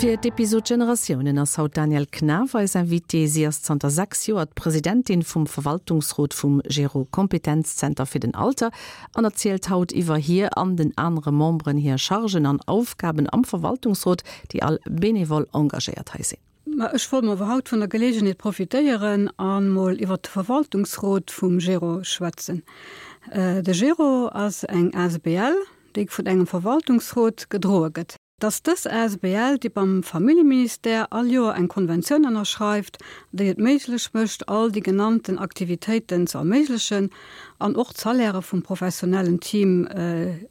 Fir d'Episod Generatiounen ass haut d'Danièle Knaff eis Invitée. Si ass zanter 6 Joer d'Presidentin vum Verwaltungsrot vum Gero Kompetenzzenter fir den Alter an erzielt haut iwwer hir an den anere Memberen hir Chargen an Aufgaben am Verwaltungsrot, déi all benevol engagéiert hei sinn. Ma ech wollt mer awer haut vun der Geleegenheet profitéieren an mol iwwert de Verwaltungsrot vum Gero schwätzen. De Gero ass eng asbl, déi vun engem Verwaltungsrot gedroe gëtt. Et ass dës asbl, déi beim Familljeministère all Joer eng Konventioun ënnerschreift, déi et méiglech mécht, all déi genannten Aktivitéiten ze erméiglechen an och d'Salairë vum professionellen Team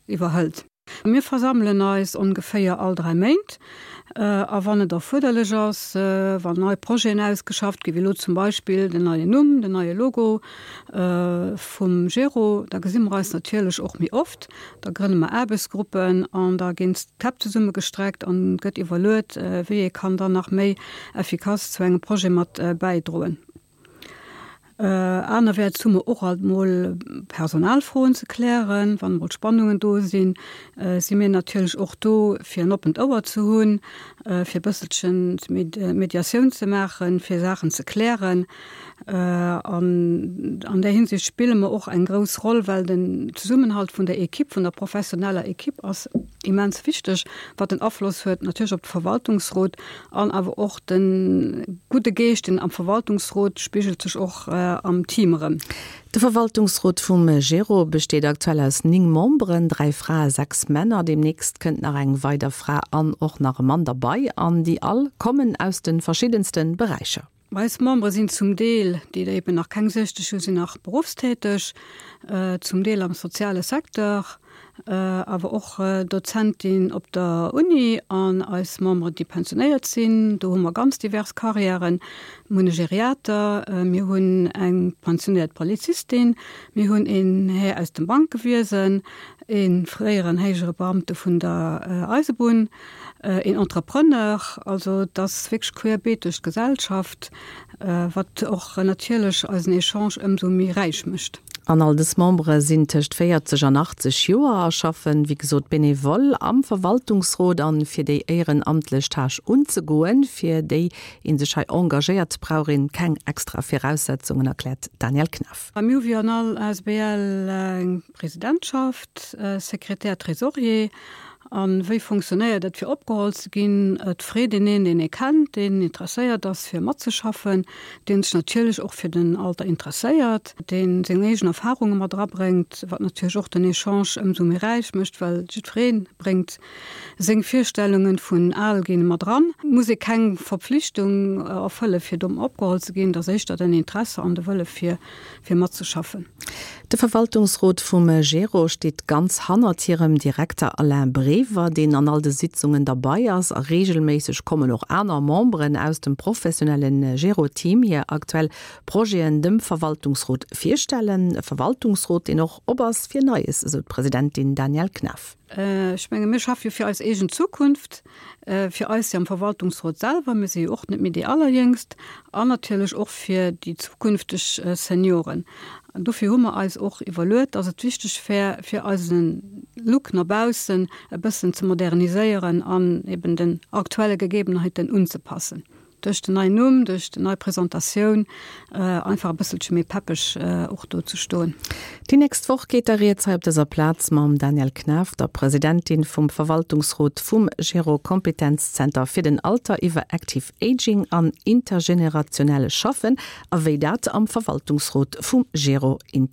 iwwerhëlt. Mir versammelen eis ongeféier all 3 Méint a wann et erfuerderlech ass, wann nei Projeten ausgeschafft ginn, wéi elo zum Beispill den neien Numm, den neie Logo vum Gero, da gesi mer eis natierlech och méi oft. Da grënne mer Aarbechtsgruppen an da ginn d'Käpp zesummegestreckt an et gëtt iwwerluet, wéi ee kann dann nach méi effikass zu engem Projet mat bäidroen. Anerwäerts hu mer och alt mol Personalfroen ze klären. Wann emol Spannungen do sinn, si mir natierlech och do, fir en oppent Ouer ze hunn, fir e bësselchen Mediatioun ze maachen, fir Saachen ze klären. An an där Hinsicht spille mer och eng grouss Roll, well den Zesummenhalt vun der Equipe, vun der professioneller Equipe ass immens wichteg, wat en Afloss huet natierlech op de Verwaltungsrot an awer och de gudde Geescht, deen am Verwaltungsrot spigelt sech och am Team erëm. De Verwaltungsrot vum Gero besteet aktuell aus 9 Memberen, 3 Frae, 6 Männer. Deemnächst kënnt nach eng weider Fra an och nach e Mann derbei an déi all kommen aus de verschiddenste Beräicher. Eis Membere sinn zum Deel, déi der eben nach keng 60 hunn, sinn nach beruffstäteg, zum Deel am soziale Secteur, awer och Dozentin op der Uni an eis Memberen, déi pensionéiert sinn. Do hu mer ganz divers Carrièren. Mir hunn e Geriater, mir hunn eng pensionéiert Polizistin, mir hunn een Här aus dem Bankewiesen, ee fréieren héijere Beamte vun der Eisebunn, een Entrepreneur, also et ass wierklech querbeet duerch d'Gesellschaft, wat och natierlech eisen Echange ëmsou méi räich mécht. An all dës Membere sinn tëscht 40 an 80 Joer a schaffen, wéi gesot, benevol am Verwaltungsrot. An fir déi éierenamtlech Tâche unzegoen, fir déi ee sech hei engagéiert, brauch een keng extra Viraussetzungen, erkläert d'Danièle Knaff. Mir hu wéi an all asbl eng Presidentschaft, Sekretär, Trésorier. A wéi funktionéiert et, fir opgeholl ze ginn? Et freet een een, deen ee kennt, deen interesséiert ass, fir matzeschaffen, dee sech natierlech och fir den Alter interesséiert, dee seng eegen Erfarunge mat erabréngt, wat natierlech och den Echange ëmsou méi räich mécht, well jiddweree bréngt seng Virstellunge vun al ginn mat eran. Et muss ee keng Verpflichtung erfëlle fir do opgeholl ze ginn, et ass éischter den Interesse an de Wëlle fir fir matzeschaffen. De Verwaltungsrot vum Gero steet ganz hannert hirem Direkter Alain Brever, deen an all de Sitzungen derbei ass. A reegelméisseg kommen och aner Memberen aus dem professionelle Gero-Team hir aktuell Projeten dem Verwaltungsrot virstellen. E Verwaltungsrot, deen och op ass fir Neies, esou d'Presidentin Danièle Knaff. Ech menge mir schaffe jo fir eis eegen Zukunft, fir eis jo am Verwaltungsrot selwer, mir si jo och net méi déi Allerjéngst, an natierlech och fir déi zukünfteg Senioren. An dofir hu mer eis och iwwerluet, dass et wichteg wär, fir eise Look no baussen e bëssen ze moderniséieren an eben den aktuelle Gegebenheiten unzepassen. Duerch den neien Numm, duerch déi nei Presentatioun einfach e bësselche méi peppeg och do ze stoen. Déi nächst Woch geet da rieds hei op dëser Plaz mam Danièle Knaff, der Presidentin vum Verwaltungsrot vum Gero Kompetenzzenter fir den Alter iwwer Active Aging an intergenerationell Schaffen a wéi dat am Verwaltungsrot vum Gero.